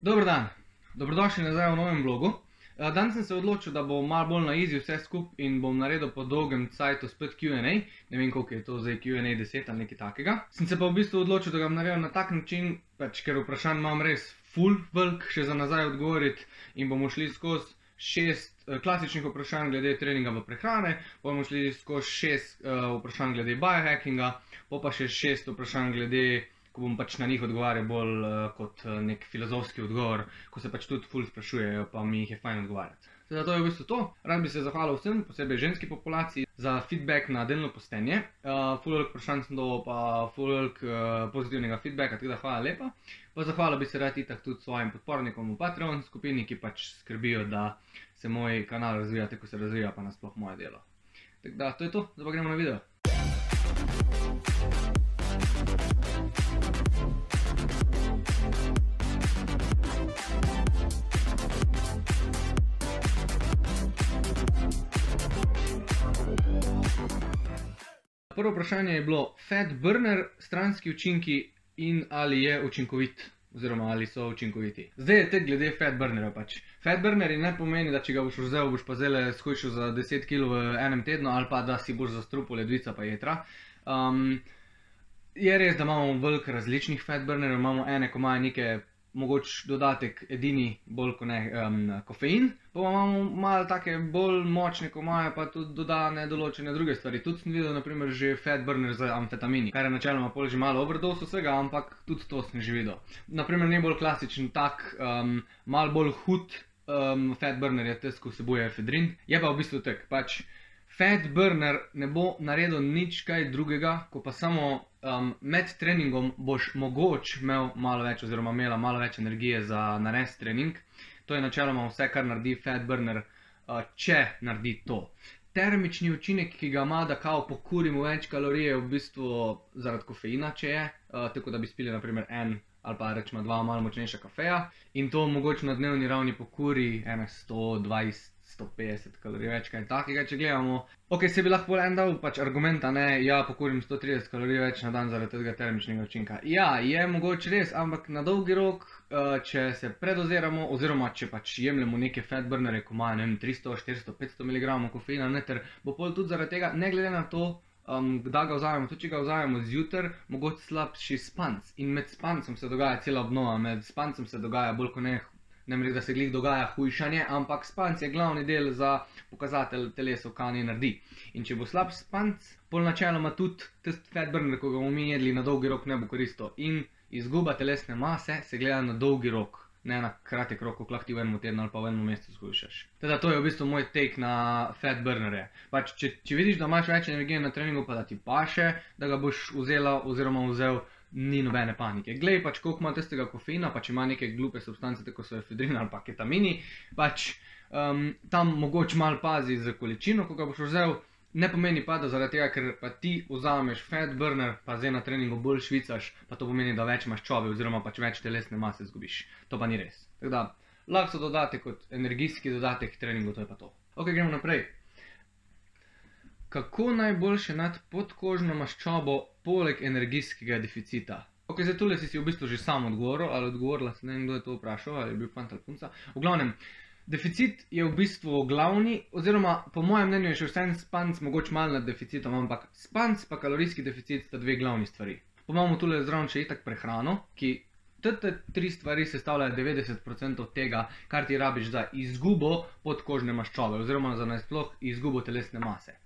Dober dan, dobrodošli nazaj v novem vlogu. Danes sem se odločil, da bom malo bolj na easy vse skupaj in bom naredil po dolgem cajtu spet Q&A. Ne vem, koliko je to zdaj Q&A 10 ali nekaj takega. Sem se pa v bistvu odločil, da ga naredim na tak način, ker vprašanj imam res full velik še za nazaj odgovoriti in bomo šli skozi 6 klasičnih vprašanj glede treninga v prehrane, bomo šli skozi 6 vprašanj glede biohackinga, pa še 6 vprašanj glede, ko bom pač na njih odgovarjal bolj kot nek filozofski odgovor, ko se pač tudi ful sprašujejo, pa mi jih je fajn odgovarjati. Teda to je v bistvu to. Rad bi se zahvalil vsem, posebej ženski populaciji, za feedback na delno postenje. Ful veliko vprašanj sem dobil, pa ful veliko pozitivnega feedbacka, tako da hvala lepa. Pa zahvalil bi se rad itak tudi svojim podpornikom v Patreon skupini, ki pač skrbijo, da se moj kanal razvija tako, ko se razvija, pa nasploh moje delo. Tako da, to je to, zdaj pa gremo na video. Prvo vprašanje je bilo fat burner, stranski učinki in ali je učinkovit, oziroma ali so učinkoviti. Zdaj je tek glede fat burnerja pač. Fat burnerji ne pomeni, da če ga boš vzel, boš pa zdajle shujšal za 10 kg v enem tednu, ali pa da si boš zastrupil ledvica pa jetra. Je res, da imamo veliko različnih fat burnerjev, imamo ene, ko imajo neke mogoče dodatek edini bolj kot ne kofein, pa imamo malo take bolj močne, ko imajo pa tudi dodane določene druge stvari. Tudi sem videl naprimer že fat burner z amfetamini, kar je načeloma pol že malo overdose vsega, ampak tudi to sem že videl. Naprimer najbolj klasičen tak, malo bolj hud fat burner je tisti, ko vsebuje efedrin, je pa v bistvu tak, pač fat burner ne bo naredil nič kaj drugega, ko pa samo med treningom boš mogoče imel malo več oziroma imela malo več energije za narediti trening. To je načeloma vse, kar naredi fat burner, če naredi to. Termični učinek, ki ga ima, da kao pokurimo več kalorije, je v bistvu zaradi kofeina, če je, tako da bi spili naprimer en ali pa rečemo 2 malo močnejša kafeja in to mogoče na dnevni ravni pokuri 120, 150 kalorij več, kaj takega, če gledamo. Ok, se bi lahko en dal pač argumenta, ne, ja, pokurim 130 kalorij več na dan zaradi tega termičnega učinka. Ja, je mogoče res, ampak na dolgi rok, če se predoziramo, oziroma če pač jemljemo neke fat burnerje, ko imajo, ne vem, 300, 400, 500 mg kofeina noter, bo pol tudi zaradi tega, ne glede na to, kdaj ga vzamemo, tudi če ga vzamemo zjutraj, mogoče slabši spanc. In med spancem se dogaja cela obnova, med spancem se dogaja bolj kot ne rekel, da se glih dogaja hujšanje, ampak spanc je glavni del za pokazatelj telesu, kaj naj naredi. In če bo slab spanc, pol načeloma tudi tisti fat burner, ko ga bomo mi jedli, na dolgi rok ne bo koristil. In izguba telesne mase se gleda na dolgi rok, ne na kratek rok, ko lahko ti v enem tednu ali pa v enem mesecu shujšaš. Teda to je v bistvu moj take na fat burnerje. Pač, če vidiš, da imaš več energije na treningu, pa da ti paše, da ga boš vzela oziroma vzel, ni nobene panike. Glej pač, koliko ima tistega kofeina, pač ima neke glupe substance, tako so efedrin ali pa ketamini, pač tam mogoče malo pazi za količino, ko ga boš vzel, ne pomeni pa, da zaradi tega, ker pa ti vzameš fat burner, pa zdaj na treningu bolj švicaš, pa to pomeni, da več maščobe oziroma pač več telesne mase zgubiš. To pa ni res. Tako da, lahko so dodatek kot energijski dodatek treningu, to je pa to. Ok, gremo naprej. Kako najboljše nad podkožno maščobo poleg energijskega deficita? Ok, zdaj tule si v bistvu že sam odgovoril, ali odgovorila, ne vem, kdo je to vprašal, ali je bil fant ali punca. V glavnem, deficit je v bistvu glavni, oziroma po mojem mnenju je še vsem spanc mogoče malo nad deficitom, ampak spanc pa kalorijski deficit sta dve glavni stvari. Pa imamo tule zraven še itak prehrano, ki te 3 stvari sestavljajo 90% tega, kar ti rabiš za izgubo podkožne maščobe, oziroma za nasploh izgubo telesne mase.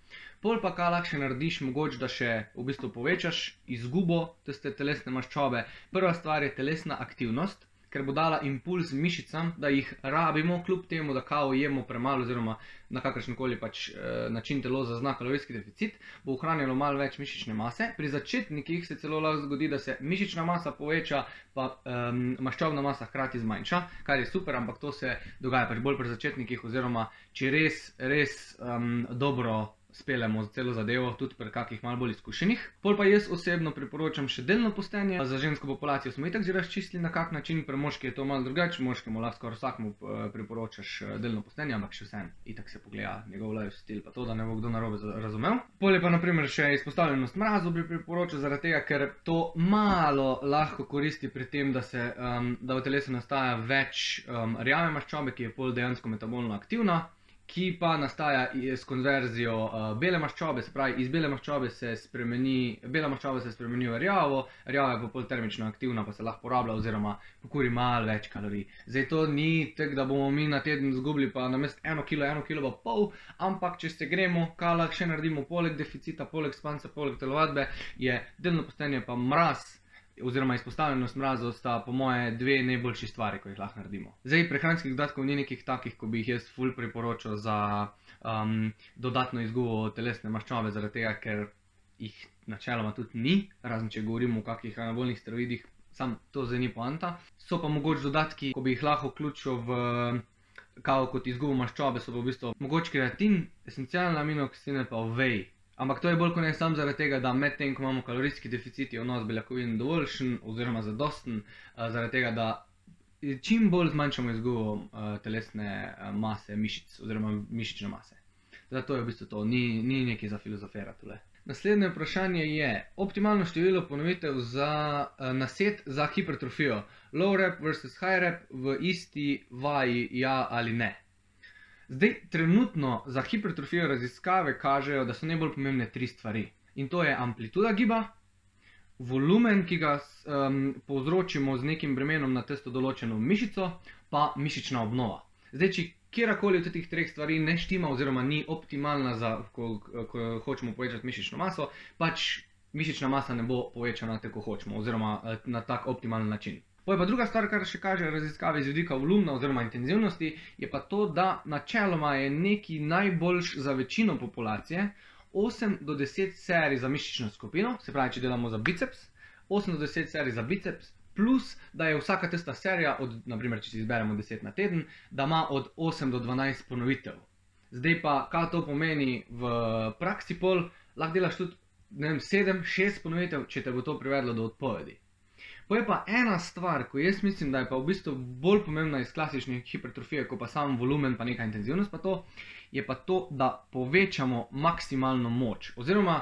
Pol pa kaj lahko še narediš, mogoče da še v bistvu povečaš izgubo tiste telesne maščobe. Prva stvar je telesna aktivnost, ker bo dala impuls mišicam, da jih rabimo, kljub temu, da kao jemo premalo oziroma na kakršenkoli pač način telo zazna kalorijski deficit, bo ohranjalo malo več mišične mase. Pri začetnikih se celo lahko zgodi, da se mišična masa poveča, pa maščobna masa hkrati zmanjša, kar je super, ampak to se dogaja pač bolj pri začetnikih oziroma če res dobro speljemo celo zadevo, tudi pri kakih malo bolj izkušenih. Pol pa jaz osebno priporočam še delno postenje. Za žensko populacijo smo itak že razčistili na kak način, pri moški je to malo drugače, moškemu lahko skoraj vsakmu priporočaš delno postenje, ampak še vseeno, itak se pogleda njegov lifestyle, pa to, da ne bo kdo narobe razumel. Pol je pa na primer še izpostavljenost mrazu bi priporočil, zaradi tega, ker to malo lahko koristi pri tem, da v telesu nastaja več rjave maščobe, ki je pol dejansko metabolno aktivna, ki pa nastaja s konverzijo bele maščobe, se pravi, iz bele maščobe bela maščoba se spremeni v rjavo, rjava je pa pol termično aktivna, pa se lahko porablja oziroma pokuri malo več kalorij. Zdaj to ni tako, da bomo mi na teden zgubili pa namesto 1 kilo, 1,5 kg, ampak če se gremo, kaj lahko še naredimo poleg deficita, poleg spanca, poleg telovadbe, je delno postenje pa mraz, oziroma izpostavljenost mrazu sta po moje dve najboljši stvari, ko jih lahko naredimo. Zdaj, prehranskih dodatkov ni nekih takih, ko bi jih jaz ful priporočal za dodatno izgubo telesne maščobe, zaradi tega, ker jih načeloma tudi ni, razen če govorimo o kakih anabolnih steroidih, sam to zdaj ni poanta. So pa mogoče dodatki, ko bi jih lahko vključil v kao kot izgubo maščobe, so pa v bistvu mogoče kreatin, esencialne aminokisline pa whey. Ampak to je bolj kot ne samo zaradi tega, da med tem, ko imamo kalorijski deficit, je vnos beljakovin dovoljšen oziroma zadosten, zaradi tega, da čim bolj zmanjšamo izgubo telesne mase mišic oziroma mišične mase. Zato je v bistvu to, ni nekaj za filozofirati tule. Naslednje vprašanje je, optimalno število ponovitev za naset za hipertrofijo. Low rep versus high rep v isti vaji, ja ali ne? Zdaj, trenutno za hipertrofijo raziskave kažejo, da so najbolj pomembne 3 stvari. In to je amplituda giba, volumen, ki ga povzročimo z nekim bremenom na tisto določeno mišico, pa mišična obnova. Zdaj, če kjerkoli od teh 3 stvari ne štima oziroma ni optimalna za, ko hočemo povečati mišično maso, pač mišična masa ne bo povečana tako, kot hočemo, oziroma na tak optimalen način. Pa druga stvar, kar še kaže raziskave iz vidika volumna oziroma intenzivnosti, je pa to, da načeloma je nekaj najboljš za večino populacije 8 do 10 serij za mišično skupino, se pravi, če delamo za biceps, 8 do 10 serij za biceps, plus da je vsaka tista serija, naprimer, če si izberemo 10 na teden, da ima od 8 do 12 ponovitev. Zdaj pa, kaj to pomeni v praksi pol, lahko delaš tudi, ne vem, 7, 6 ponovitev, če te bo to privedlo do odpovedi. Pa je pa ena stvar, ko jaz mislim, da je pa v bistvu bolj pomembna iz klasične hipertrofije, kot pa sam volumen pa neka intenzivnost pa to, je pa to, da povečamo maksimalno moč. Oziroma,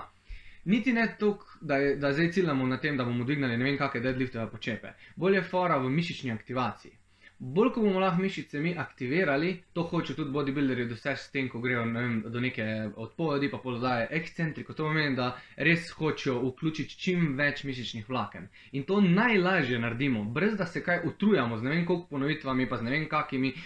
niti ne toliko, da zdaj ciljamo na tem, da bomo dvignali ne vem kakšne deadliftove počepe. Bolj je fora v mišični aktivaciji. Bolj, ko bomo lahko mišice mi aktivirali, to hoče tudi bodybuilderji doseči s tem, ko grejo do neke odpovedi, pa polodaje ekscentriko. To pomeni, da res hočejo vključiti čim več mišičnih vlaken. In to najlažje naredimo, brez da se kaj utrujamo z ne vem koliko ponovitvami, pa z ne vem kakimi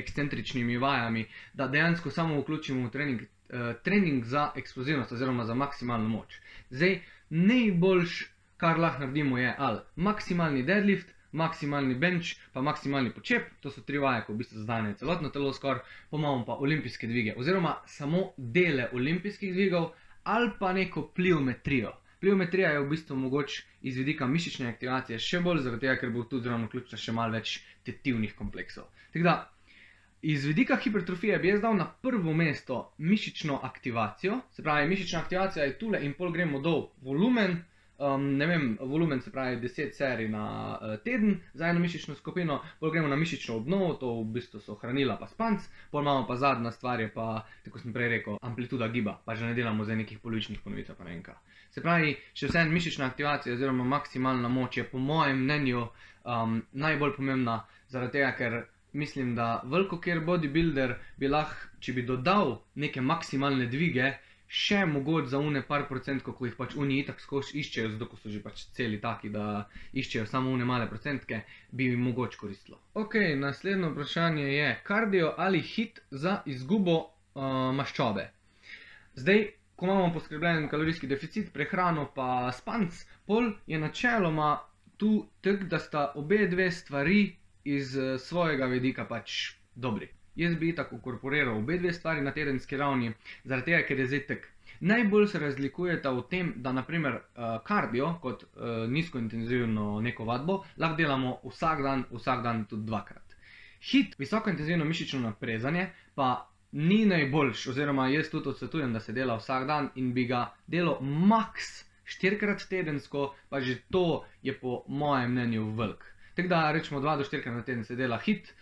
ekscentričnimi vajami, da dejansko samo vključimo v trening za eksplozivnost oziroma za maksimalno moč. Zdaj, najboljš, kar lahko naredimo, je ali maksimalni deadlift, maksimalni bench, pa maksimalni počep, to so 3 vaje, ko v bistvu zadane celotno telo skoraj, pa imamo pa olimpijske dvige, oziroma samo dele olimpijskih dvigov, ali pa neko pliometrijo. Pliometrija je v bistvu mogoče iz vidika mišične aktivacije še bolj, zaradi tega, ker bo tudi zraven vključila še malo več tetivnih kompleksov. Tako da, iz vidika hipertrofije bi jaz dal na prvo mesto mišično aktivacijo, se pravi, mišična aktivacija je tule in pol gremo dol volumen, ne vem, volumen se pravi 10 serij na teden za eno mišično skupino, pol gremo na mišično obnovo, to v bistvu so hranila pa spanc, pol imamo pa zadnja stvar je pa, tako sem prej rekel, amplituda giba, pa že ne delamo zdaj nekih polovičnih ponovitev pa ne vem kaj. Se pravi, še vseeno mišična aktivacija oziroma maksimalna moč je po mojem mnenju najbolj pomembna, zaradi tega, ker mislim, da velikokjer bodybuilder bi lahko, če bi dodal neke maksimalne dvige, še mogoče za une par procentko, ko jih pač oni itak skozi iščejo, zato ko so že pač celi taki, da iščejo samo une male procentke, bi jim mogoče koristilo. Ok, naslednje vprašanje je, kardio ali hit za izgubo maščobe. Zdaj, ko imamo poskrbljen kalorijski deficit, prehrano pa spanc, pol je načeloma tu tako, da sta obe dve stvari iz svojega vidika pač dobri. Jaz bi itak ukorporiral obe dve stvari na tedenski ravni, zaradi tega, ker je zdaj tak. Najbolj se razlikujeta v tem, da naprimer kardio, kot nizkointenzivno neko vadbo, lahko delamo vsak dan tudi 2-krat. HIIT, visokointenzivno mišično naprezanje, pa ni najboljš, oziroma jaz tudi odsvetujem, da se dela vsak dan in bi ga delal maks 4-krat tedensko, pa že to je po mojem mnenju velik. Tako da rečemo 2 do 4-krat na teden se dela hit,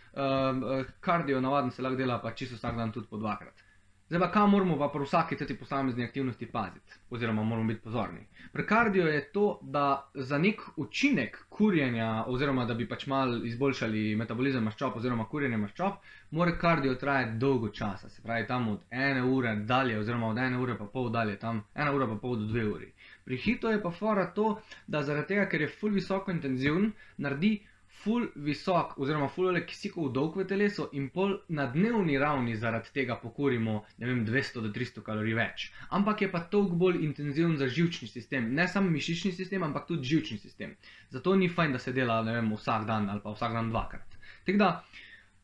kardio navaden se lahko dela pa čisto vsak dan tudi po 2-krat. Zdaj pa, kaj moramo pa pri vsaki teti posamezni aktivnosti paziti, oziroma moramo biti pozorni. Pri kardio je to, da za nek učinek kurjenja, oziroma da bi pač malo izboljšali metabolizem maščob oziroma kurjenje maščob, mora kardio trajati dolgo časa, se pravi tam od 1 ure dalje, oziroma od 1 ure pa pol dalje, tam 1 ura pa pol do 2 uri. Pri hitu je pa fora to, da zaradi tega, ker je ful visoko intenziven, naredi ful visok, oziroma ful kisikov dolg v telesu in pol na dnevni ravni zaradi tega pokurimo, ne vem, 200 do 300 kalorij več. Ampak je pa toliko bolj intenziven za živčni sistem, ne samo mišični sistem, ampak tudi živčni sistem. Zato ni fajn, da se dela, ne vem, vsak dan ali pa vsak dan 2-krat. Tako da,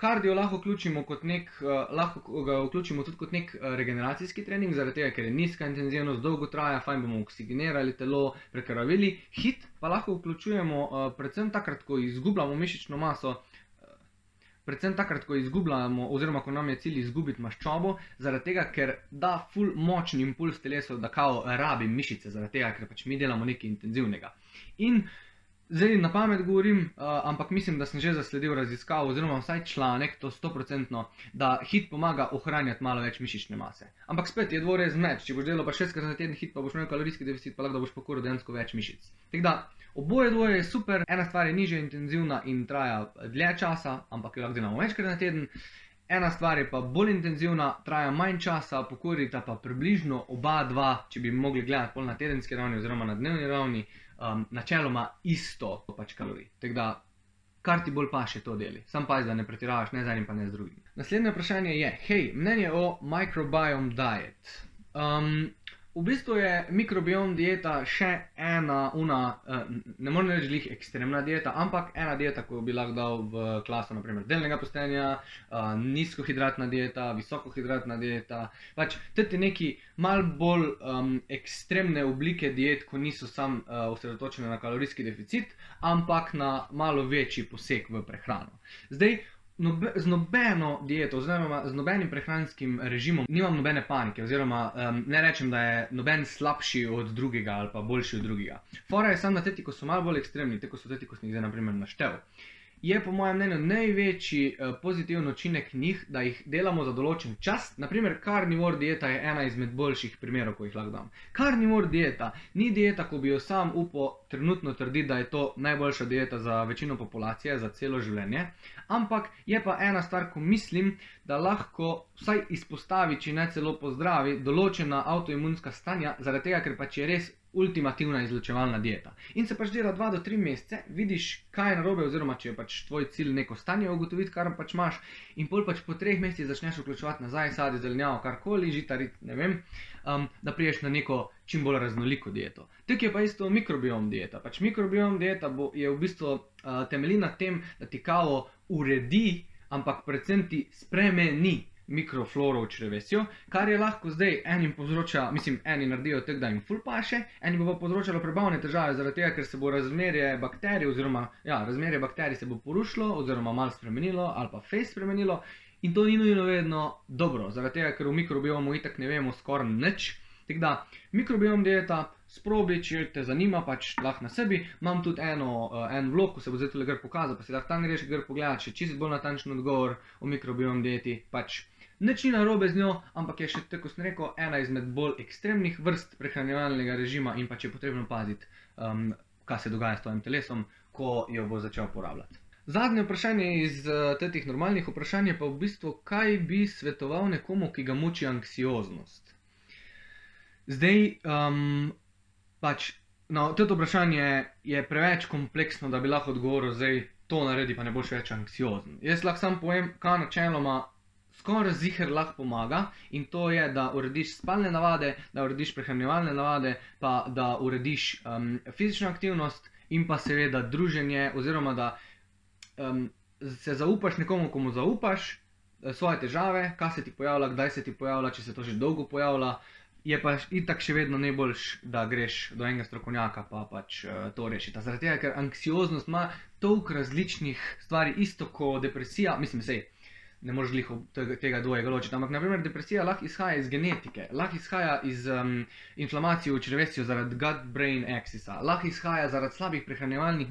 kardio lahko vključimo tudi kot nek regeneracijski trening, zaradi tega, ker je nizka intenzivnost, dolgo traja, fajn bomo oksigenirali telo, prekrvavili. Hit pa lahko vključujemo predvsem takrat, ko izgubljamo mišično maso, oziroma ko nam je cilj izgubiti maščobo, zaradi tega, ker da ful močni impuls telesu, da kao rabim mišice, zaradi tega, ker pač mi delamo nekaj intenzivnega. In zdaj na pamet govorim, ampak mislim, da sem že zasledil raziskavo, oziroma vsaj članek, to 100%, da hit pomaga ohranjati malo več mišične mase. Ampak spet je dvorezen meč, če boš delal pa 6-krat na teden hit, pa boš imel kalorijski deficit, pa lahko da boš pokuril dejansko več mišic. Tako da, oboje dvoje je super, ena stvar je nižje intenzivna in traja dlje časa, ampak jo lahko delamo večkrat na teden. Ena stvar je pa bolj intenzivna, traja manj časa, pokurita pa približno oba dva, če bi mogli gledati pol na tedenski ravni oziroma na dnevni ravni, načeloma isto pač kalorij. Tako da, kar ti bolj paše, to deli. Sam pazi, da ne pretiravaš ne z enim pa ne z drugim. Naslednje vprašanje je, hej, mnenje o microbiome diet. V bistvu je mikrobiom dieta še ena, ne morem reči glih ekstremna dieta, ampak ena dieta, ko bi lahko dal v klaso, naprimer, delnega postenja, nizkohidratna dieta, visokohidratna dieta, pač tudi neki malo bolj ekstremne oblike diet, ko niso sam osredotočene na kalorijski deficit, ampak na malo večji poseg v prehrano. Zdaj, z nobeno dieto, oziroma z nobenim prehranskim režimom nimam nobene panike, oziroma ne rečem, da je noben slabši od drugega ali pa boljši od drugega. Fora je samo na teti, ko so malo bolj ekstremni, tako so teti, ko sem jih zdaj naprimer naštel. Je po mojem mnenju največji pozitiven učinek njih, da jih delamo za določen čas. Naprimer, carnivore dieta je ena izmed boljših primerov, ko jih lahko dam. Carnivore dieta ni dieta, ko bi jo sam upal trenutno trditi, da je to najboljša dieta za večino populacije, za celo življenje. Ampak je pa ena stvar, ko mislim, da lahko vsaj izpostavi, če ne celo pozdravi, določena avtoimunska stanja, zaradi tega, ker pač je res ultimativna izločevalna dieta. In se pač dela 2 do 3 mesece, vidiš, kaj je narobe, oziroma če je pač tvoj cilj neko stanje ugotoviti, kar pač imaš, in pol pač po 3 mesecih začneš vključevati nazaj sadje, zelenjavo, karkoli, žitarit, ne vem, da priješ na neko čim bolj raznoliko dieto. Tako je pa isto mikrobiom dieta. Pač mikrobiom dieta je v bistvu temelji na tem, da ti kao uredi, ampak predvsem ti spremeni mikrofloro v črevesju, kar je lahko zdaj enim povzroča, eni naredijo tako, da jim ful paše, eni bo pa povzročalo prebavne težave, zaradi tega, ker se bo razmerje bakterij, oziroma, razmerje bakterij se bo porušilo, oziroma malo spremenilo, ali pa fejst spremenilo, in to ni nujno vedno dobro, zaradi tega, ker v mikrobiomu itak ne vemo skoraj nič. Tako da, mikrobiom dieta, sprobi, če te zanima, pač lahko na sebi. Imam tudi en vlog, ko se bo zdaj tule gor pokazal, pa si lahko tam greš gor pogledati, še čisto bolj natančen odgovor o mikrobiom dieti, pač nič ni narobe z njo, ampak je še, tako sem rekel, ena izmed bolj ekstremnih vrst prehranjevalnega režima in pač je potrebno paziti, kaj se dogaja s tvojim telesom, ko jo bo začel uporabljati. Zadnje vprašanje iz teh normalnih vprašanj je pa v bistvu, kaj bi svetoval nekomu, ki ga muči anksioznost. Zdaj, pač, to vprašanje je preveč kompleksno, da bi lahko odgovoril, zdaj to naredi, pa ne boš več anksiozen. Jaz lahko sam povem, kaj načeloma skoraj ziher lahko pomaga, in to je, da urediš spalne navade, da urediš prehranjevalne navade, pa da urediš fizično aktivnost in pa seveda druženje, oziroma da se zaupaš nekomu, komu zaupaš svoje težave, kaj se ti pojavlja, kdaj se ti pojavlja, če se to že dolgo pojavlja. Je pa itak še vedno najboljš, da greš do enega strokovnjaka pa pač to rešita. Zaradi tega, ker anksioznost ima toliko različnih stvari, isto kot depresija, ne moreš glih tega dvojega ločiti. Ampak, naprimer, depresija lahko izhaja iz genetike, lahko izhaja iz inflamacije v črevesju zaradi gut-brain axisa, lahko izhaja zaradi slabih prehranjevalnih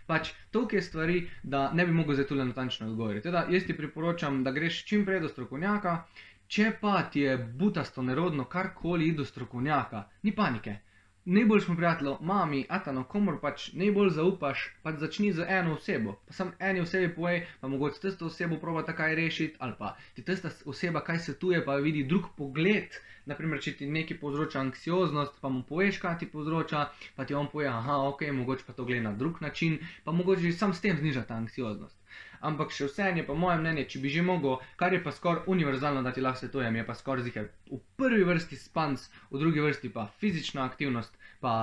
pač toliko je stvari, da ne bi mogel zdaj tule natančno odgovoriti. Teda, jaz ti priporočam, da greš čim prej do strokovnjaka, če pa ti je butasto nerodno karkoli do strokovnjaka, ni panike. Najboljšemu prijatelju, mami, atano, komor pač najbolj zaupaš, pač začni z eno osebo. Pa sam eni osebi povej, pa mogoče tisto osebo probata kaj rešiti, ali pa ti tista oseba kaj svetuje, pa vidi drug pogled. Naprimer, če ti nekaj povzroča anksioznost, pa mu poveš, kaj ti povzroča, pa ti on poje, aha, ok, mogoče pa to gleda na drug način, pa mogoče sam s tem zniža ta anksioznost. Ampak še vseeno je pa moje mnenje, če bi že mogel, kar je pa skoraj univerzalno, da ti lahko svetujem, je pa skoraj ziher v prvi vrsti spanc, v drugi vrsti pa fizična aktivnost, pa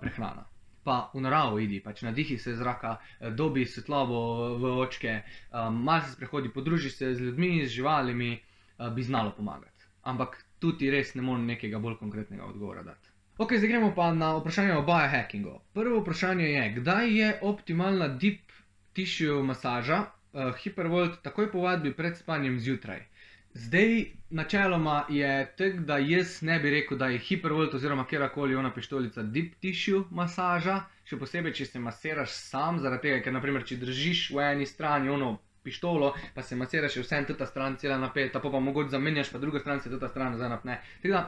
prehrana. Pa v naravo idi, pač nadihi se zraka, dobi svetlobo v očke, malo se sprehodi, podruži se z ljudmi, z živalimi, bi znalo pomagati. Ampak tudi res ne morem nekega bolj konkretnega odgovora dati. Ok, zdaj gremo pa na vprašanje o biohackingu. Prvo vprašanje je, kdaj je optimalna deep tissue masaža, Hypervolt takoj po vadbi pred spanjem zjutraj. Zdaj, načeloma je tako, da jaz ne bi rekel, da je Hypervolt oziroma kjerkoli ona pištolica deep tissue masaža, še posebej, če se masiraš sam, zaradi tega, ker naprimer, če držiš v eni strani ono pištolo, pa se masiraš je vsem teta stran cela napeta, pa mogoče zamenjaš, pa druga stran se teta stran nazaj napne. Tako da,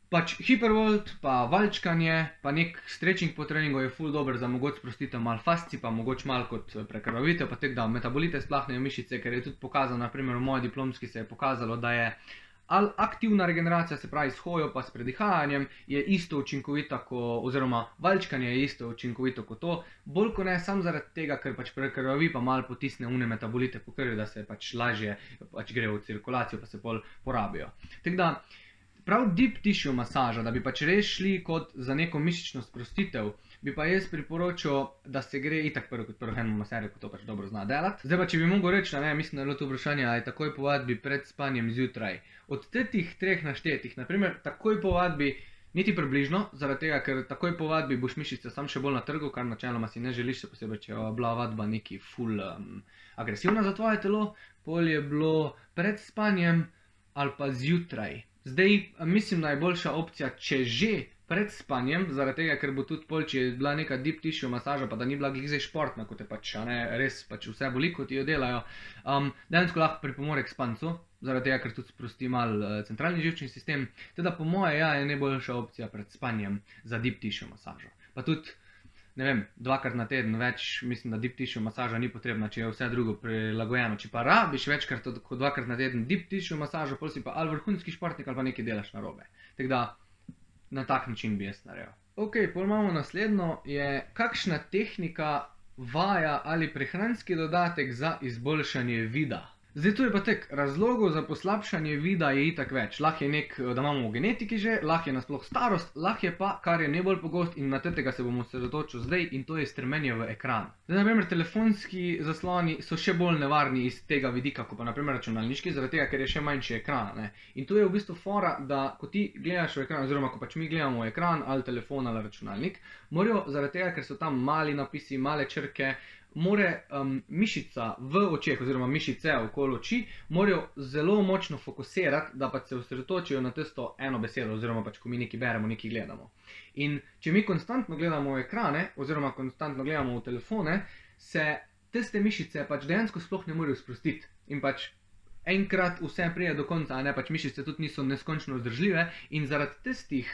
pač Hypervolt, pa valčkanje, pa nek stretching po treningu je ful dober za mogoče sprostitev malo fasci, pa mogoče malo kot prekrvavitev, pa tako da metabolite splahnejo mišice, ker je tudi pokazano, naprimer v moji diplomski se je pokazalo, da je aktivna regeneracija, se pravi s hojo pa s predihajanjem, je isto učinkovita, oziroma valčkanje je isto učinkovito kot to, bolj ko ne sam zaradi tega, ker pač prekrvavi pa malo potisne une metabolite po krvi, da se pač lažje pač gre v cirkulacijo, pa se pol porabijo. Tako da, prav deep tissue masaža, da bi pač res šli kot za neko mišično sprostitev, bi pa jaz priporočil, da se gre itak prvo kot prvo eno maserjo, ko to pač dobro zna delati. Zdaj pa, če bi mogel reči, ne, mislim, da je bilo to vprašanje, ali takoj po vadbi pred spanjem zjutraj. Od teh treh naštetih, naprimer, takoj po vadbi, niti približno, zaradi tega, ker takoj po vadbi boš mišice sam še bolj na trgu, kar načeloma si ne želiš, še posebej, če je bila vadba neki ful agresivna za tvoje telo, pol je bilo pred spanjem ali pa zjutraj. Zdaj, mislim, da je boljša opcija, če že pred spanjem, zaradi tega, ker bo tudi pol, če je bila neka deep tissue masaža, pa da ni bila glih zdaj športna, kot je pač, res pač vse boli, kot jo delajo, dejansko lahko pripomore k spancu, zaradi tega, ker tudi sprosti malo centralni živčni sistem, teda po moje, ja, je najboljša opcija pred spanjem za deep tissue masažo. Pa tudi, ne vem, 2krat na teden več, mislim, da deep tissue masaža ni potrebna, če je vse drugo prilagojeno. Če pa rabiš večkrat kot 2krat na teden deep tissue masažo, pol si pa ali vrhunski športnik ali pa nekaj delaš narobe. Tako da, na tak način bi jaz naredil. Ok, pol imamo naslednjo, je kakšna tehnika, vaja ali prehranski dodatek za izboljšanje vida. Zdaj, tu je pa tek, razlogov za poslabšanje vida je itak več. Lahko je da imamo v genetiki že, lahko je nasploh starost, lahko je pa, kar je najbolj pogost in na tega se bomo osredotočili zdaj, in to je strmenje v ekran. Zdaj, naprimer, telefonski zasloni so še bolj nevarni iz tega vidika, kot pa naprimer računalniški, zaradi tega, ker je še manjši ekran, ne. In tu je v bistvu fora, da ko ti gledaš v ekran, oziroma ko pač mi gledamo v ekran, ali telefon ali računalnik, morajo zaradi tega, ker so tam mali napisi, male črke, more mišica v očeh, oziroma mišice okoli oči, morajo zelo močno fokusirati, da pa se osredotočijo na tisto eno besedo, oziroma pač, ko mi nekaj beremo, nekaj gledamo. In če mi konstantno gledamo v ekrane, oziroma konstantno gledamo v telefone, se tiste mišice pač dejansko sploh ne morejo sprostiti. In pač enkrat vse prije do konca, a ne, pač mišice tudi niso neskončno vzdržljive in zaradi tistih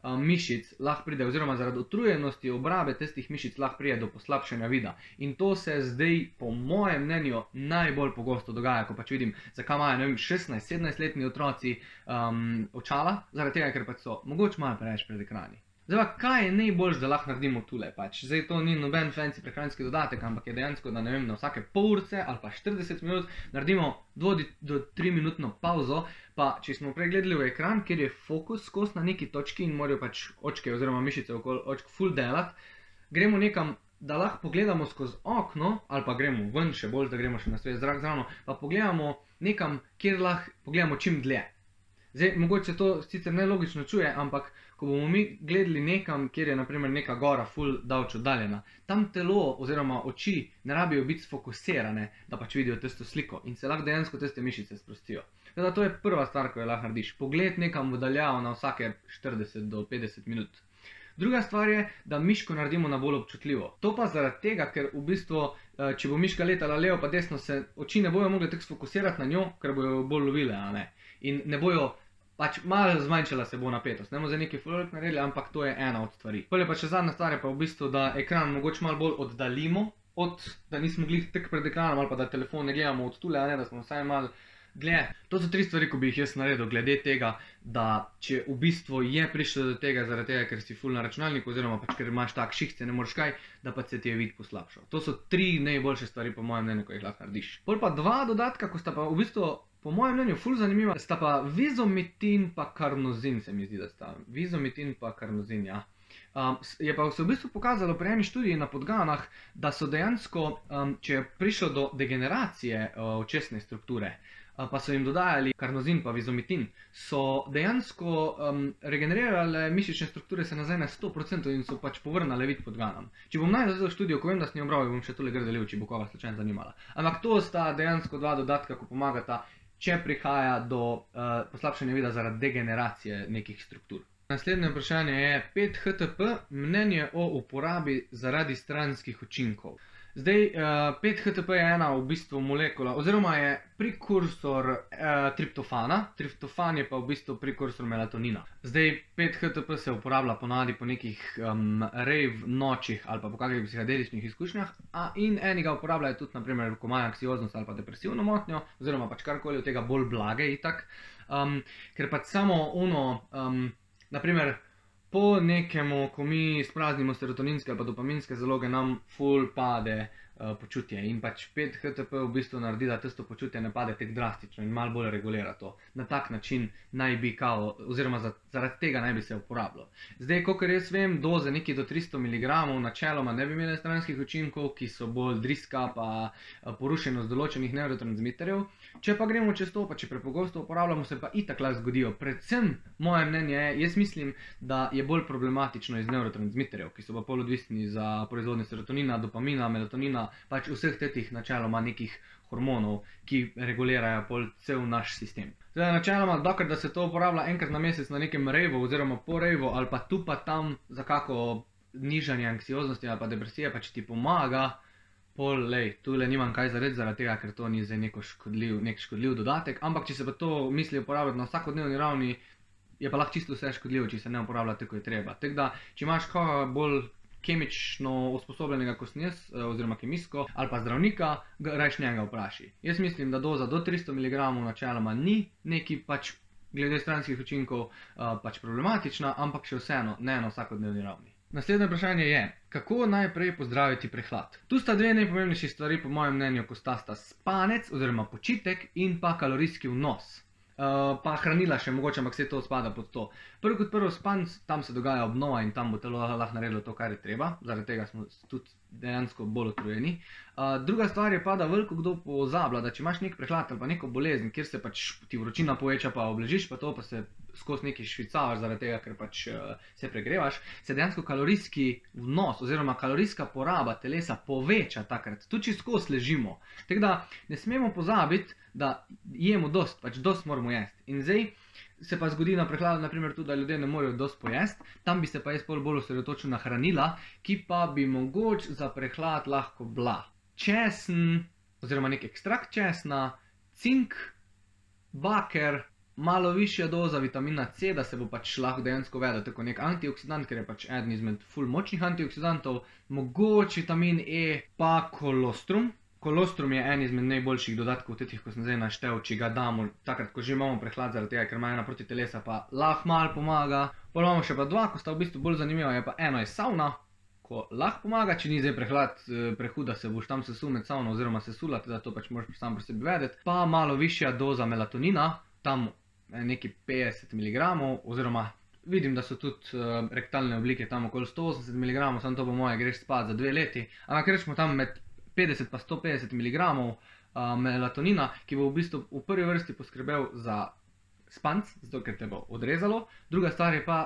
mišic lahko pride, oziroma zaradi utrujenosti obrabe tistih mišic lahko pride do poslabšanja vida. In to se zdaj, po mojem mnenju, najbolj pogosto dogaja, ko pač vidim, zakaj imajo, ne vem, 16-17-letni otroci očala, zaradi tega, ker pač so mogoče malo preveč pred ekrani. Zdaj pa, kaj je najboljš, da lahko naredimo tule pač? Zdaj to ni noben fancy prehranski dodatek, ampak je dejansko, da ne vem, na vsake pol urce ali pa 40 minut naredimo 2 do 3 minutno pauzo, pa če smo prej gledali v ekran, kjer je fokus skozi na neki točki in morajo pač očke oziroma mišice okoli očk full delati, gremo nekam, da lahko pogledamo skozi okno, ali pa gremo ven, še bolj, da gremo še na svež zrak zravno, pa pogledamo nekam, kjer lahko pogledamo čim dlje. Zdaj, mogoče to sicer nelogično čuje, ampak ko bomo mi gledali nekam, kjer je naprimer neka gora ful daleč oddaljena, tam telo oziroma oči ne rabijo biti sfokusirane, da pač vidijo tisto sliko in se lahko dejansko tiste mišice sprostijo. Teda to je prva stvar, ko jo lahko narediš. Pogled nekam v daljavo na vsake 40 do 50 minut. Druga stvar je, da miško naredimo na bolj občutljivo. To pa zaradi tega, ker v bistvu, če bo miška letala levo pa desno, se oči ne bojo mogli tako sfokusirati na njo, ker bojo bolj lovile, a ne. In ne bojo, pač malo zmanjšala se bo napetost. Ne bomo za neki full naredili, ampak to je ena od stvari. Potem pa še zadnja stvar je pa v bistvu, da ekran mogoče malo bolj oddaljimo, da nismo glih tek pred ekranom ali pa da telefon ne gledamo od tule, a ne, da smo vsaj malo gled. To so 3 stvari, ko bi jih jaz naredil glede tega, da če v bistvu je prišlo do tega zaradi tega, ker si ful na računalniku oziroma pač ker imaš tak šihce, ne moreš kaj, da pa se ti je vid poslabšal. To so 3 najboljše stvari po mojem mnenju, ko jih lahko narediš. Pol pa 2 dodatka, ko sta pa v bistvu po mojem mnenju ful zanimiva, sta pa vizomitin pa karnozin, se mi zdi, da sta. Vizomitin pa karnozin, ja. Je pa se v bistvu pokazalo pri eni študiji na podganah, da so dejansko, če je prišlo do degeneracije očesne strukture, pa so jim dodajali karnozin pa vizomitin, so dejansko regenerirale mišične strukture se nazaj na 100% in so pač povrnale vid podganam. Če bom najdel za študijo, ko vem, da sem jo bral, bom še tole grdelil, če bo koga slučajno zanimala. Ampak to sta dejansko 2 dodatka, ko pomagata, če prihaja do poslabšanja vida zaradi degeneracije nekih struktur. Naslednje vprašanje je 5-HTP, mnenje o uporabi zaradi stranskih učinkov. Zdaj, 5-HTP je ena v bistvu molekula, oziroma je prekursor triptofana, triptofan je pa v bistvu prekursor melatonina. Zdaj, 5-HTP se uporablja ponavadi po nekih rave nočih ali pa po kakih psihadeličnih izkušnjah, in eniga uporabljajo tudi, naprimer, ko imajo anksioznost ali pa depresivno motnjo, oziroma pač karkoli od tega bolj blage itak, ker pač samo naprimer, po nekemu, ko mi spraznimo serotoninske ali pa dopaminske zaloge, nam ful pade počutje in pač 5-HTP v bistvu naredi, da tisto počutje ne pade tako drastično in malo bolj regulira to. Na tak način naj bi kao, oziroma zaradi tega naj bi se uporabljalo. Zdaj, kakor jaz vem, doze neki do 300 mg načeloma ne bi imele stranskih učinkov, ki so bolj driska pa porušenost določenih nevrotransmiterjev. Če pa gremo čez to, pa če prepogosto uporabljamo, se pa itak lahko zgodijo. Predvsem, moje mnenje je, jaz mislim, da je bolj problematično iz nevrotransmiterjev, ki so pa pol odvisni za proizvodnje serotonina, dopamina, melatonina, pač vseh tetih načeloma nekih hormonov, ki regulirajo pol cel naš sistem. Zdaj, načeloma, dokler da se to uporablja enkrat na mesec na nekem rejvu oziroma po rejvu ali pa tu pa tam za kako nižanje anksioznosti ali pa depresije, pa če ti pomaga, pol, tule nimam kaj zarediti zaradi tega, ker to ni zdaj nek škodljiv dodatek, ampak če se pa to misli uporabljati na vsakodnevni ravni, je pa lahko čisto vse škodljivo, če se ne uporablja tako, je treba. Tako da, če imaš koga bolj kemično usposobljenega, kot sem jaz, oziroma kemijsko, ali pa zdravnika, rajš njega vpraši. Jaz mislim, da doza do 300 mg načeloma ni neki pač glede stranskih učinkov pač problematična, ampak še vseeno ne na vsakodnevni ravni. Naslednje vprašanje je, kako najprej pozdraviti prehlad? Tu sta 2 najpomembnejši stvari po mojem mnenju, ko sta spanec oziroma počitek in pa kalorijski vnos. Pa hranila še mogoče, ampak vse to spada pod to. Prvo kot prvo spanc, tam se dogaja obnova in tam bo telo lahko naredilo to, kar je treba, zaradi tega smo tudi dejansko bolj utrujeni. Druga stvar je pa, da veliko kdo pozablja, da če imaš nek prehlad ali pa neko bolezen, kjer se pač ti vročina poveča pa obležiš, pa to pa se skozi neki švicavaš zaradi tega, ker pač se pregrevaš, se dejansko kalorijski vnos oziroma kalorijska poraba telesa poveča takrat, tudi če skozi ležimo. Tako da ne smemo pozabiti, da jemo dost, pač dost moramo jesti. In zdaj se pa zgodi na prehladu, naprimer tudi, da ljudje ne morejo dost pojesti, tam bi se pa jaz bolj osredotočil na hranila, ki pa bi mogoče za prehlad lahko bila česen, oziroma nek ekstrakt česna, cink, baker, malo višja doza vitamina C, da se bo pač lahko dejansko vedel tako nek antioksidant, ker je pač eden izmed ful močnih antioksidantov, mogoče vitamin E, pa kolostrum. Kolostrum je en izmed najboljših dodatkov tetih, ko sem zdaj naštel, če ga damo takrat, ko že imamo prehlad zaradi tega, ker ima ena proti telesa, pa lahko malo pomaga. Potem imamo še pa 2, ko sta v bistvu bolj zanimiva, je pa eno je savna, ko lahko pomaga, če ni zdaj prehlad prehud, da se boš tam sesul med savno oziroma sesula, teda to pač moraš sam pri sebi vedeti. Pa malo višja doza melatonina, tam neki 50 mg, oziroma vidim, da so tudi rektalne oblike tam okoli 180 mg, samo to po moje greš spat za 2 leti, ampak rečemo tam med 50 pa 150 mg melatonina, ki bo v bistvu v prvi vrsti poskrbel za spanc, zato ker te bo odrezalo. Druga stvar je pa,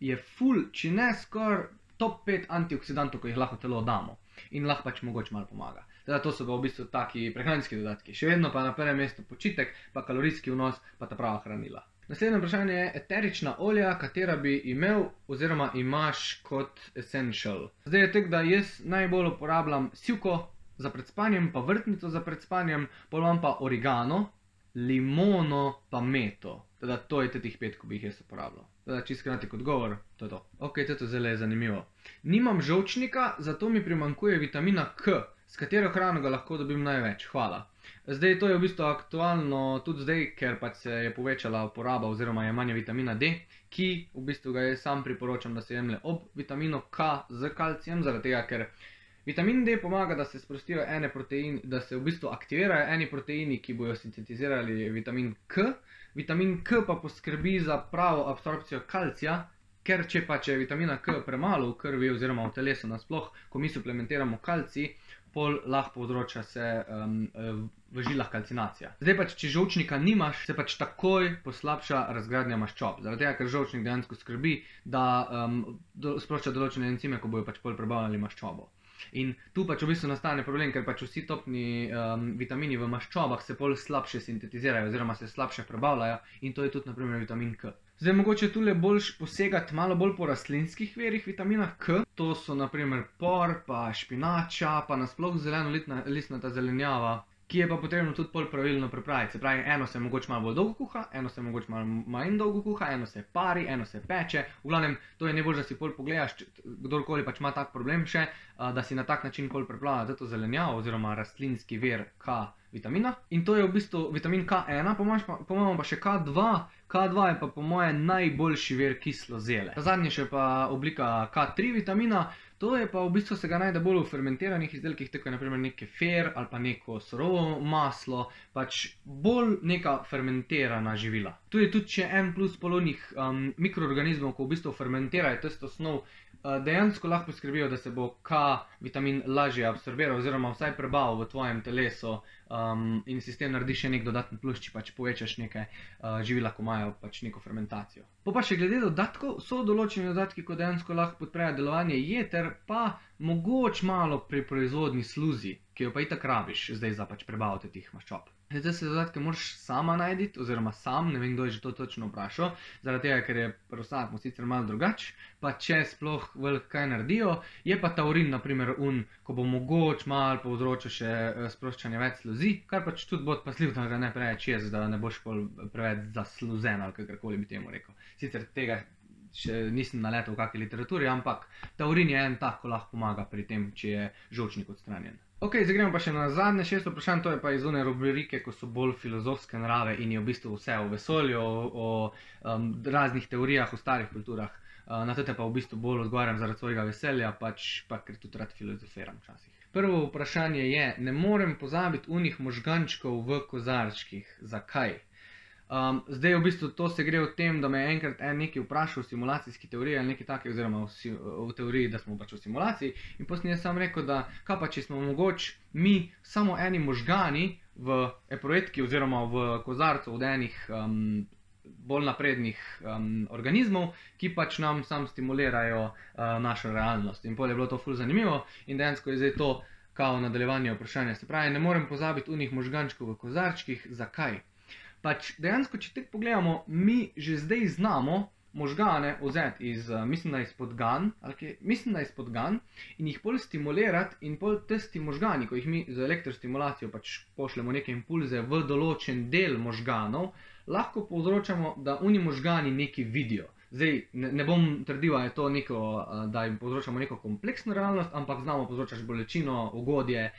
je ful, če ne skoraj top 5 antioksidantov, ko jih lahko telo damo. In lahko pač mogoče malo pomaga. Teda to so pa v bistvu taki prehranski dodatki. Še vedno pa na prvem mestu počitek, pa kalorijski vnos, pa ta prava hranila. Naslednje vprašanje je eterična olja, katera bi imel oziroma imaš kot essential. Zdaj je tako, da jaz najbolj uporabljam sivko za pred spanjem, pa vrtnico za pred spanjem, pol imam pa origano, limono pa meto. Teda to je teh 5, ko bi jih jaz uporabljal. Teda čisto kratek odgovor, to je to. Ok, to zelo je zanimivo. Nimam žolčnika, zato mi primanjkuje vitamina K, s katero hrano ga lahko dobim največ. Hvala. Zdaj to je v bistvu aktualno tudi zdaj, ker pač se je povečala uporaba oziroma jemanje vitamina D, ki v bistvu ga jaz sam priporočam, da se jemlje ob vitaminu K z kalcijem, zaradi tega, ker vitamin D pomaga, da se sprostijo ene proteini, da se v bistvu aktivirajo eni proteini, ki bojo sintetizirali vitamin K. Vitamin K pa poskrbi za pravo absorpcijo kalcija, ker če pa je vitamina K premalo v krvi oziroma v telesu nasploh, ko mi suplementiramo kalcij, pol lahko povzroča se v žilah kalcinacija. Zdaj pač, če žolčnika nimaš, se pač takoj poslabša razgradnja maščob. Zaradi tega, ker žolčnik dejansko skrbi, da sprošča določene encime, ko bojo pač pol prebavljali maščobo. In tu pač v bistvu nastane problem, ker pač vsi topni vitamini v maščobah se pol slabše sintetizirajo oziroma se slabše prebavljajo in to je tudi na primer vitamin K. Zdaj mogoče tule boljš posegati malo bolj po rastlinskih virih vitamina K. To so na primer por, pa špinača, pa nasploh zelenolistnata zelenjava, ki je pa potrebno tudi pol pravilno pripraviti. Se pravi, eno se mogoče malo bolj dolgo kuha, eno se mogoče malo manj dolgo kuha, eno se pari, eno se peče. V glavnem, to je najbolj, da si pol pogledaš, kdorkoli pač ima tak problem še, da si na tak način pol pripravlja to zelenjavo oziroma rastlinski vir K vitamina. In to je v bistvu vitamin K1, pomamo pa še K2. K2 je pa po moje najboljši vir kislozele. Ta zadnji še pa oblika K3 vitamina. To je pa v bistvu se ga najde bolj v fermentiranih izdelkih, tako je na primer nek kefir ali pa neko surovo maslo, pač bolj neka fermentirana živila. Tu je tudi še en plus polonih mikroorganizmov, ko v bistvu fermentirajo tisto snov, dejansko lahko poskrbijo, da se bo K vitamin lažje absorbiral oziroma vsaj prebavil v tvojem telesu in si s tem naredi še nek dodatni plus, če pač povečaš neke živila, ko imajo pač neko fermentacijo. Pa še glede dodatkov, so določeni dodatki, ko dejansko lahko podprejo delovanje jeter, pa mogoče malo pri proizvodni sluzi, ki jo pa itak rabiš zdaj za pač prebaviti teh maščob. Zdaj se dodatke moraš sama najditi, oziroma sam, ne vem, kdo je že to točno vprašal, zaradi tega, ker je pri vsakmu sicer malo drugače, pa če sploh veliko kaj naredijo, je pa taurin, na primer, ko bo mogoče malo povzročil še sproščanje več sluzi, kar pač tudi bo pasljiv, da ga ne preveč jez, da ne boš preveč zasluzen ali kakorkoli bi temu rekel. Sicer tega še nisem naletel v kakšni literaturi, ampak taurin je en tak, ko lahko pomaga pri tem, če je žolčnik odstranjen. Ok, zdaj gremo pa še na zadnje 6 vprašanj, to je pa iz one rubrike, ko so bolj filozofske narave in je v bistvu vse o vesolju, o raznih teorijah, o starih kulturah. Na tete pa v bistvu bolj odgovarjam zaradi svojega veselja, pač pa ker tudi rad filozofiram včasih. Prvo vprašanje je, ne morem pozabiti unih možgančkov v kozarčkih. Zakaj? Zdaj v bistvu to se gre o tem, da me je enkrat nekaj vprašal v simulacijski teoriji ali nekaj take, oziroma v teoriji, da smo pač v simulaciji, in potem sem sam rekel, da kaj pa če smo mogoče mi samo eni možgani v eproetki oziroma v kozarcu od enih bolj naprednih organizmov, ki pač nam sam stimulirajo našo realnost. In potem je bilo to ful zanimivo in dejansko je zdaj to kao nadaljevanje vprašanja. Se pravi, ne morem pozabiti unih možgančkov v kozarčkih. Zakaj? Pač dejansko, če tako pogledamo, mi že zdaj znamo možgane vzeti iz, mislim, da iz podgan, in jih pol stimulirati in pol tisti možgani, ko jih mi z elektrostimulacijo pač pošljemo neke impulze v določen del možganov, lahko povzročamo, da oni možgani nekaj vidijo. Zdaj, ne bom trdil, da jim povzročamo neko kompleksno realnost, ampak znamo povzročati bolečino, ugodje,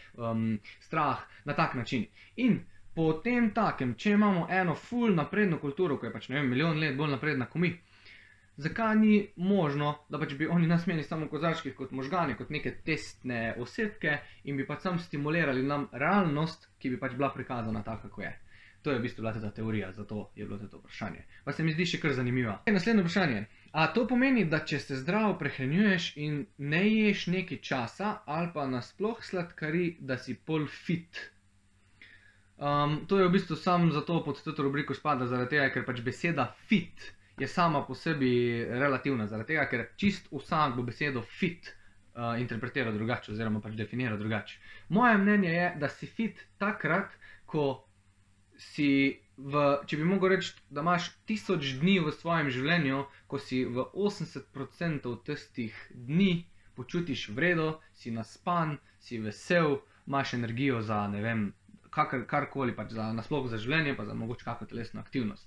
strah na tak način. In potem takem, če imamo eno ful napredno kulturo, ko je pač, ne vem, milijon let bolj napredna kot mi, zakaj ni možno, da pač bi oni nas imeli samo v kozarčkih kot možgani, kot neke testne osebke in bi pač sam stimulirali nam realnost, ki bi pač bila prikazana taka, kako je. To je v bistvu bila ta teorija, zato je bilo to vprašanje. Pa se mi zdi še kar zanimiva. Naslednje vprašanje. A to pomeni, da če se zdravo prehranjuješ in ne ješ nekaj časa ali pa nasploh sladkari, da si pol fit? To je v bistvu sam zato pod to rubriko spada, zaradi tega, ker pač beseda fit je sama po sebi relativna, zaradi tega, ker čist vsak bo besedo fit interpretira drugače oziroma pač definira drugače. Moje mnenje je, da si fit takrat, ko si če bi mogel reči, da imaš 1000 dni v svojem življenju, ko si v 80% tistih dni počutiš v redu, si naspan, si vesel, imaš energijo za, ne vem, karkoli, pač nasploh za življenje, pa za mogoče kakšno telesno aktivnost.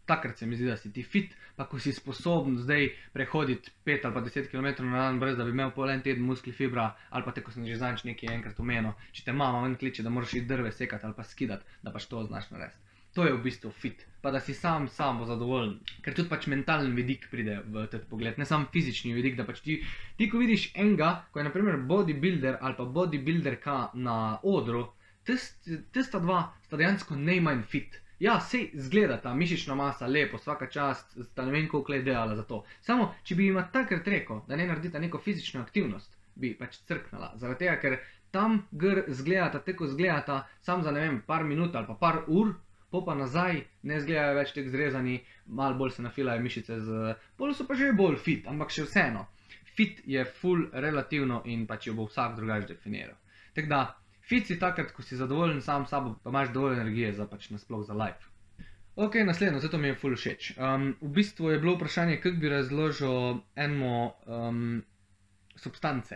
Takrat se mi zdi, da si ti fit, pa ko si sposoben zdaj prehoditi 5 ali pa 10 km na dan, brez da bi imel pol en teden muskli fibra, ali pa te, ko sem že zanč nekaj enkrat omenil, če te mama ven kliče, da moraš iti drve sekati ali pa skidati, da pač to znaš narediti. To je v bistvu fit, pa da si sam zadovoljen, ker tudi pač mentalni vidik pride v ta pogled, ne samo fizični vidik, da pač ti ko vidiš enega, ko je na primer bodybuilder ali pa bodybuilderka na odru, tista dva sta dejansko najmanj fit. Ja, sej zgleda ta mišična masa lepo, vsaka čast, sta ne vem koliko let delala za to. Samo, če bi jima takrat rekel, da ne naredita neko fizično aktivnost, bi pač crknala. Zaradi tega, ker tam zgledata, tako zgledata, sam za ne vem, par minut ali pa par ur, pa nazaj ne zgledajo več tek zrezani, malo bolj se nafilajo mišice, bolj so pa že bolj fit, ampak še vseeno. Fit je full relativno in pač jo bo vsak drugače definiral. Tako da, fit si takrat, ko si zadovoljen sam s sabo, pa imaš dovolj energije za pač nasploh za life. Ok, naslednjo, zato mi je full všeč. V bistvu je bilo vprašanje, kako bi razložil substance.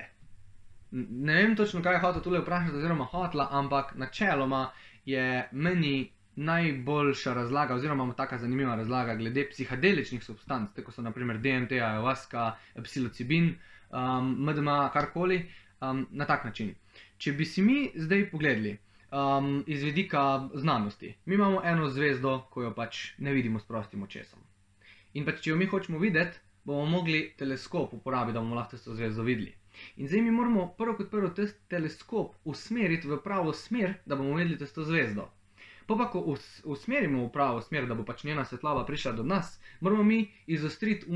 Ne vem točno, kaj je hotel tule vprašati oziroma hotla, ampak načeloma je meni najboljša razlaga oziroma taka zanimiva razlaga glede psihadeličnih substanc, tako so naprimer DMT, ayahuasca, psilocibin, MDMA, karkoli, na tak način. Če bi si mi zdaj pogledali iz vidika znanosti, mi imamo eno zvezdo, ko jo pač ne vidimo s prostim očesom. In pač, če jo mi hočemo videti, bomo mogli teleskop uporabiti, da bomo lahko to zvezdo videli. In zdaj mi moramo prvo kot prvo teleskop usmeriti v pravo smer, da bomo videli to zvezdo. Pa ko usmerimo v pravo smer, da bo pač njena svetloba prišla do nas, moramo mi izostriti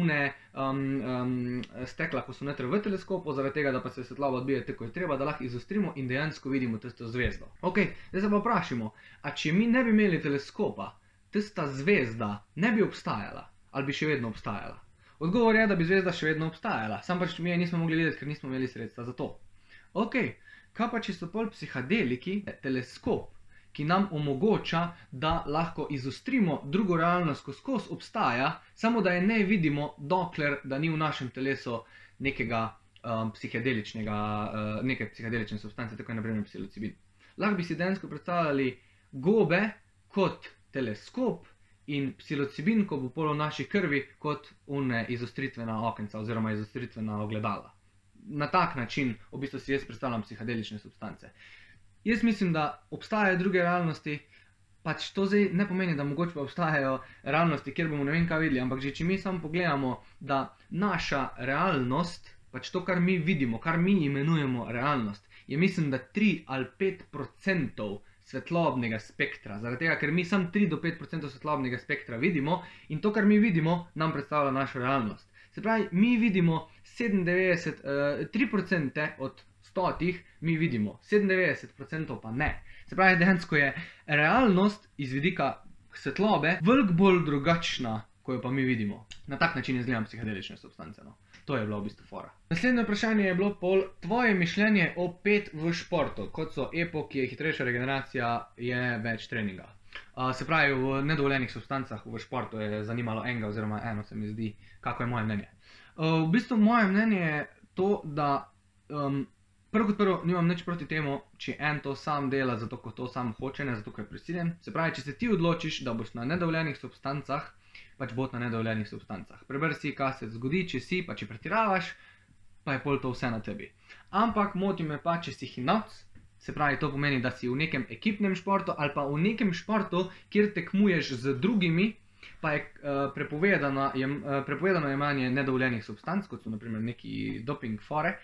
stekla, ko so noter v teleskopu, zaradi tega, da pa se svetloba odbije tako je treba, da lahko izostrimo in dejansko vidimo tisto zvezdo. Ok, zdaj se pa vprašamo, a če mi ne bi imeli teleskopa, tista zvezda ne bi obstajala ali bi še vedno obstajala? Odgovor je, da bi zvezda še vedno obstajala, sam pač mi je nismo mogli videti, ker nismo imeli sredstva za to. Ok, kaj pa če so pol psihadeliki, teleskop, ki nam omogoča, da lahko izostrimo drugo realnost, ko skozi obstaja, samo da je ne vidimo, dokler da ni v našem telesu neke psihadelične substance, tako je na primer psilocibin. Lahko bi si dejansko predstavljali gobe kot teleskop in psilocibin, ko bo pol v naši krvi, kot izostritvena okenca oziroma izostritvena ogledala. Na tak način v bistvu si jaz predstavljam psihadelične substance. Jaz mislim, da obstajajo druge realnosti, pač to zdaj ne pomeni, da mogoče pa obstajajo realnosti, kjer bomo ne vem kaj videli, ampak že če mi samo pogledamo, da naša realnost, pač to, kar mi vidimo, kar mi imenujemo realnost, je mislim, da 3 ali 5% svetlobnega spektra, zaradi tega, ker mi samo 3 do 5% svetlobnega spektra vidimo in to, kar mi vidimo, nam predstavlja našo realnost. Se pravi, mi vidimo 3% od 100 mi vidimo, 97% pa ne. Se pravi, dejansko je realnost iz vidika svetlobe veliko bolj drugačna, ko jo pa mi vidimo. Na tak način izgledam psihadelične substance. To je bilo v bistvu fora. Naslednje vprašanje je bilo pol tvoje mišljenje o PET v športu, kot so EPO, ki je hitrejša regeneracija, je več treninga. Se pravi, v nedovoljenih substancah v športu je zanimalo enega oziroma eno, se mi zdi, kako je moje mnenje. V bistvu moje mnenje je to, da prvo kot prvo nimam nič proti temu, če en to sam dela, zato ko to sam hoče, ne zato ko je prisiljen. Se pravi, če se ti odločiš, da boš na nedovoljenih substancah, pač bo na nedovoljenih substancah. Preberi si, kaj se zgodi, če si, pa če pretiravaš, pa je pol to vse na tebi. Ampak moti me pa, če si hinavc, se pravi, to pomeni, da si v nekem ekipnem športu ali pa v nekem športu, kjer tekmuješ z drugimi, pa je prepovedano jemanje nedovoljenih substanc, kot so naprimer neki doping fore.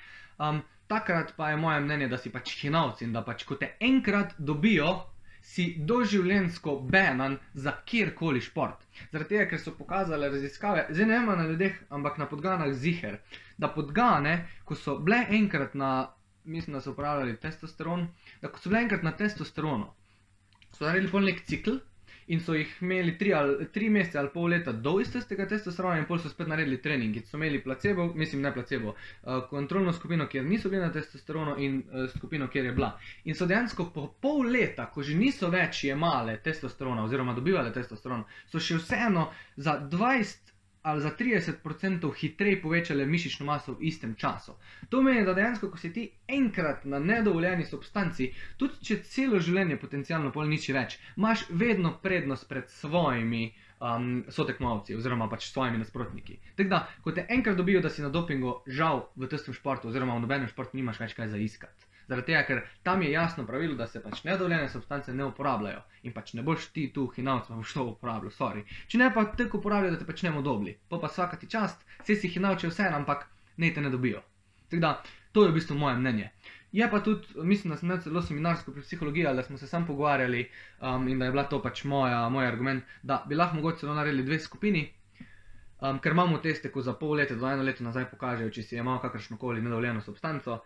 Takrat pa je moje mnenje, da si pač hinavc in da pač, ko te enkrat dobijo, si doživljenjsko banan za kjerkoli šport. Zaradi tega, ker so pokazale raziskave, zdaj ne vem na ljudeh, ampak na podganah ziher, da podgane, ko so bile enkrat na, mislim, da so uporabljali testosteron, da ko so bile enkrat na testosteronu, so naredili pol nek cikl in so jih imeli 3 mesece ali pol leta do istega testosterona in pol so spet naredili trening. In so imeli placebo, mislim ne placebo, kontrolno skupino, kjer niso bili na testosteronu in skupino, kjer je bila. In so dejansko po pol leta, ko že niso več jemale testosterona oziroma dobivale testosterona, so še vseeno za 20 ali za 30% hitreje povečale mišično maso v istem času. To pomeni, da dejansko, ko si ti enkrat na nedovoljeni substanci, tudi če celo življenje potencialno pol niči več, imaš vedno prednost pred svojimi sotekmovalci oziroma pač svojimi nasprotniki. Tako da, ko te enkrat dobijo, da si na dopingu, žal v testem športu oziroma v nobenem športu nimaš več kaj za iskati. Zaradi tega, ker tam je jasno pravilo, da se pač nedovoljene substance ne uporabljajo in pač ne boš ti tu hinavc, boš to uporabljal, sorry. Če ne pa tako uporabljajo, da te pač ne bomo dobili. Pa svaka ti čast, vse si hinavče vse, ampak ne te ne dobijo. Tako da, to je v bistvu moje mnenje. Je pa tudi, mislim, da sem imel celo seminarsko pri psihologiji, da smo se sam pogovarjali in da je bila to pač moj argument, da bi lahko mogoče celo naredili 2 skupini, ker imamo teste, ko za pol leta do 1 leto nazaj pokažejo, če si je imel kakršnokoli nedovoljeno substanco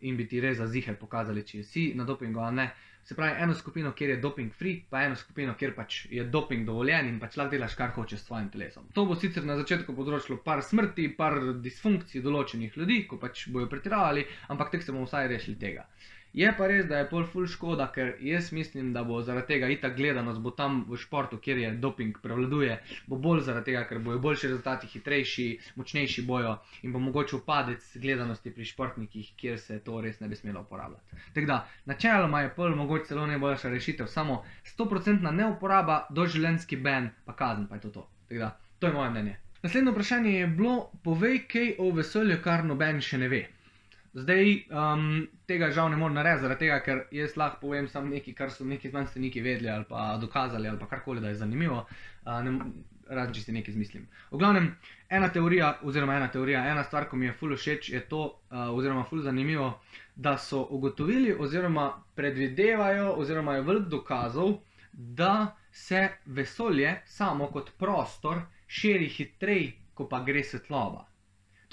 in bi ti res za ziher pokazali, če si na dopingu ali ne. Se pravi, eno skupino, kjer je doping free, pa eno skupino, kjer pač je doping dovoljen in pač lahko delaš, kar hočeš s svojim telesom. To bo sicer na začetku povzročilo par smrti, par disfunkcij določenih ljudi, ko pač bojo pretiravali, ampak tek se bomo vsaj rešili tega. Je pa res, da je pol ful škoda, ker jaz mislim, da bo zaradi tega itak gledanost bo tam v športu, kjer je doping prevladuje, bo bolj zaradi tega, ker bojo boljši rezultati, hitrejši, močnejši bojo in bo mogoče upadec gledanosti pri športnikih, kjer se to res ne bi smelo uporabljati. Tako da, načeloma je pol mogoče celo najboljša rešitev, samo 100% neuporaba, doživljenjski ban, pa kazen, pa je to to. Tako da, to je moje mnenje. Naslednje vprašanje je bilo, povej kaj o vesolju, kar noben še ne ve. Zdaj, tega žal ne morem narediti, zaradi tega, ker jaz lahko povem samo nekaj, kar so neki znanstveniki vedeli ali pa dokazali ali pa karkoli, da je zanimivo, razen če si nekaj izmislim. V glavnem, ena stvar, ko mi je ful všeč, je to, oziroma ful zanimivo, da so ugotovili oziroma predvidevajo oziroma je veliko dokazov, da se vesolje samo kot prostor širi hitreje, ko pa gre svetloba.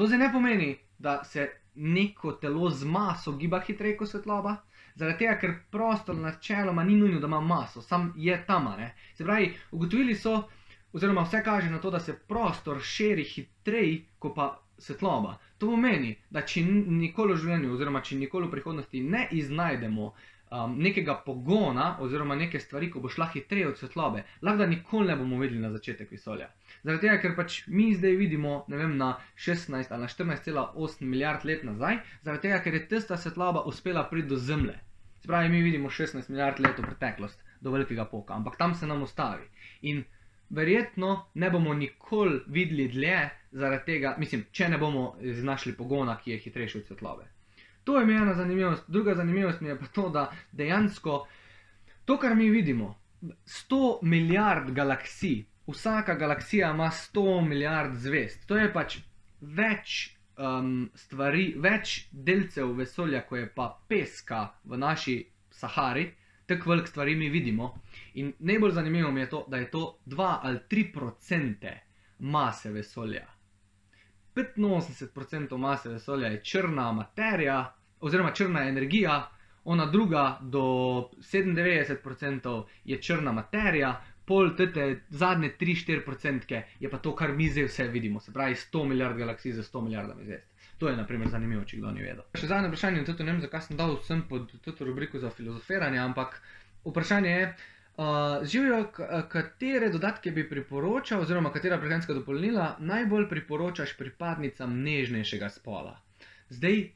To zdaj ne pomeni, da se neko telo z maso giba hitreje kot svetloba, zaradi tega, ker prostor načeloma ni nujno, da ima maso, sam je tam, ne. Se pravi, ugotovili so, oziroma vse kaže na to, da se prostor širi hitreje kot pa svetloba. To pomeni, da če nikoli v življenju oziroma če nikoli v prihodnosti ne iznajdemo nekega pogona oziroma neke stvari, ko bo šla hitreje od svetlobe, lahko da nikoli ne bomo videli na začetek vesolja. Zaradi tega, ker pač mi zdaj vidimo, ne vem, na 16 ali na 14,8 milijard let nazaj, zaradi tega, ker je tista svetloba uspela priti do Zemlje. Se pravi, mi vidimo 16 milijard let v preteklost, do velikega poka, ampak tam se nam ustavi. In verjetno ne bomo nikoli videli dlje zaradi tega, mislim, če ne bomo iznašli pogona, ki je hitrejši od svetlobe. To je mi ena zanimivost. Druga zanimivost mi je pa to, da dejansko to, kar mi vidimo, 100 milijard galaksij, vsaka galaksija ima 100 milijard zvezd. To je pač več stvari, več delcev vesolja, ko je pa peska v naši Sahari, tako veliko stvari mi vidimo. In najbolj zanimivo mi je to, da je to 2 ali 3% mase vesolja. 85% mase vesolja je črna materija, oziroma črna energija, ona druga do 97% je črna materija, pol tete zadnje 3-4% je pa to, kar mi zdaj vse vidimo, se pravi 100 milijard galaksij za 100 milijardami zvezd. To je naprimer zanimivo, če kdo ni vedel. Še zadnje vprašanje, ne vem, zakaj sem dal vsem pod to rubriko za filozofiranje, ampak vprašanje je, Živjo, katere dodatke bi priporočal, oziroma katera prehranska dopolnila najbolj priporočaš pripadnicam nežnejšega spola? Zdaj,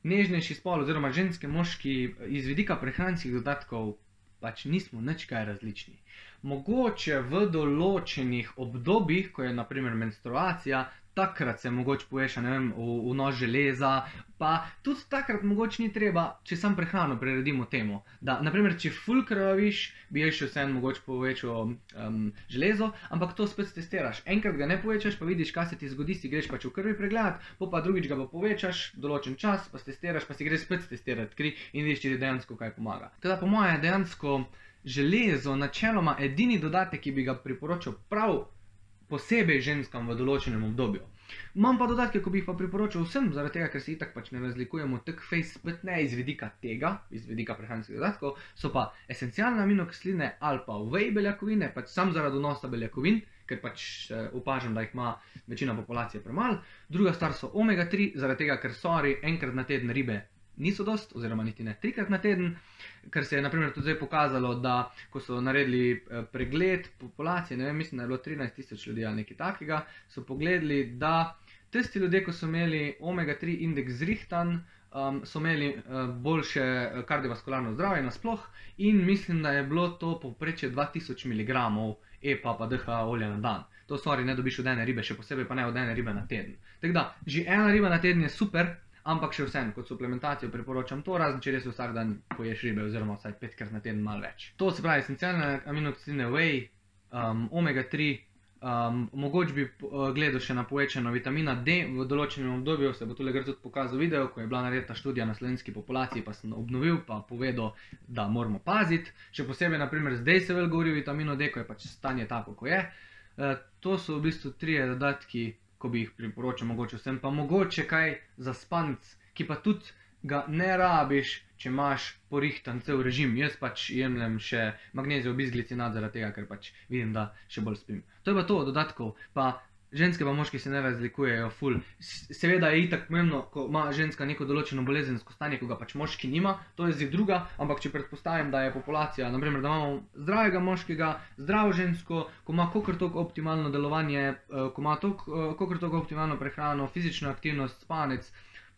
nežnejši spol oziroma ženske, moški iz vidika prehranskih dodatkov pač nismo nič kaj različni. Mogoče v določenih obdobjih, ko je naprimer menstruacija, takrat se mogoče poveša, ne vem, vnos železa, pa tudi takrat mogoče ni treba, če sam prehrano priredimo temu, da, naprimer, če ful krvaviš, bi še vseeno mogoče povečal železo, ampak to spet testiraš. Enkrat ga ne povečaš, pa vidiš, kaj se ti zgodi, si greš pač v krvi pregledat, pa drugič ga pa povečaš, določen čas, pa testiraš, pa si greš spet testirati kri in vidiš, če ti dejansko kaj pomaga. Teda po moje je dejansko železo načeloma edini dodatek, ki bi ga priporočal prav posebej ženskam v določenem obdobju. Imam pa dodatke, ko bi jih pa priporočal vsem, zaradi tega, ker se itak pač ne razlikujemo tako face spet ne iz vidika tega, iz vidika prehranskih dodatkov, so pa esencialne aminokisline ali pa whey beljakovine, pač sam zaradi vnosa beljakovin, ker pač opažam, da jih ima večina populacije premalo. Druga stvar so omega-3, zaradi tega, ker enkrat na teden ribe niso dost, oziroma niti ne 3-krat na teden, ker se je naprimer tudi zdaj pokazalo, da ko so naredili pregled populacije, ne vem, mislim, da je bilo 13 000 ljudi ali nekaj takega, so pogledali, da tisti ljudje, ko so imeli omega-3 indeks zrihtan, so imeli boljše kardiovaskularno zdravje nasploh in mislim, da je bilo to povprečje 2000 mg EPA pa DHA olja na dan. To ne dobiš od ene ribe, še posebej pa ne od ene ribe na teden. Tako da, že ena riba na teden je super, ampak še vsem, kot suplementacijo priporočam to, razen če res vsak dan poješ ribe, oziroma vsaj 5-krat na teden malo več. To se pravi, esencialne aminokisline whey, omega-3, mogoče bi gledal še na povečano vitamina D, v določenem obdobju se bo tule tudi pokazal video, ko je bila naredita študija na slovenski populaciji, pa sem obnovil, pa povedal, da moramo paziti. Še posebej, naprimer, zdaj se vel govori o vitaminu D, ko je pač stanje tako, ko je. To so v bistvu 3 dodatki, ko bi jih priporočal mogoče vsem, pa mogoče kaj za spanec, ki pa tudi ga ne rabiš, če imaš porihtan cel režim. Jaz pač jemljem še magnezijev bisglicinat zaradi tega, ker pač vidim, da še bolj spim. To je pa to dodatkov, pa ženske pa moški se ne razlikujejo ful. Seveda je itak pomembno, ko ima ženska neko določeno bolezensko stanje, ko ga pač moški nima, to je zdaj druga, ampak če predpostavim, da je populacija, naprimer, da imamo zdravega moškega, zdravo žensko, ko ima kakor toliko optimalno delovanje, ko ima kakor toliko optimalno prehrano, fizično aktivnost, spanec,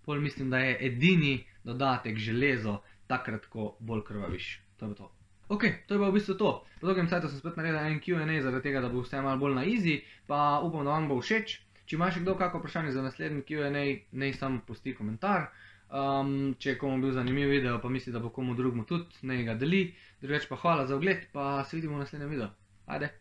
pol mislim, da je edini dodatek železo takrat, ko bolj krvaviš. To je pa to. Ok, to je pa v bistvu to. Po dolgem cajtu sem spet naredil en Q&A zaradi tega, da bo vse malo bolj na easy, pa upam, da vam bo všeč. Če imaš kdo kako vprašanje za naslednji Q&A, naj samo pusti komentar. Če je komu bil zanimiv video, pa misli, da bo komu drugmu tudi, naj ga deli. Drugače pa hvala za ogled, pa se vidimo v naslednjem videu. Ajde!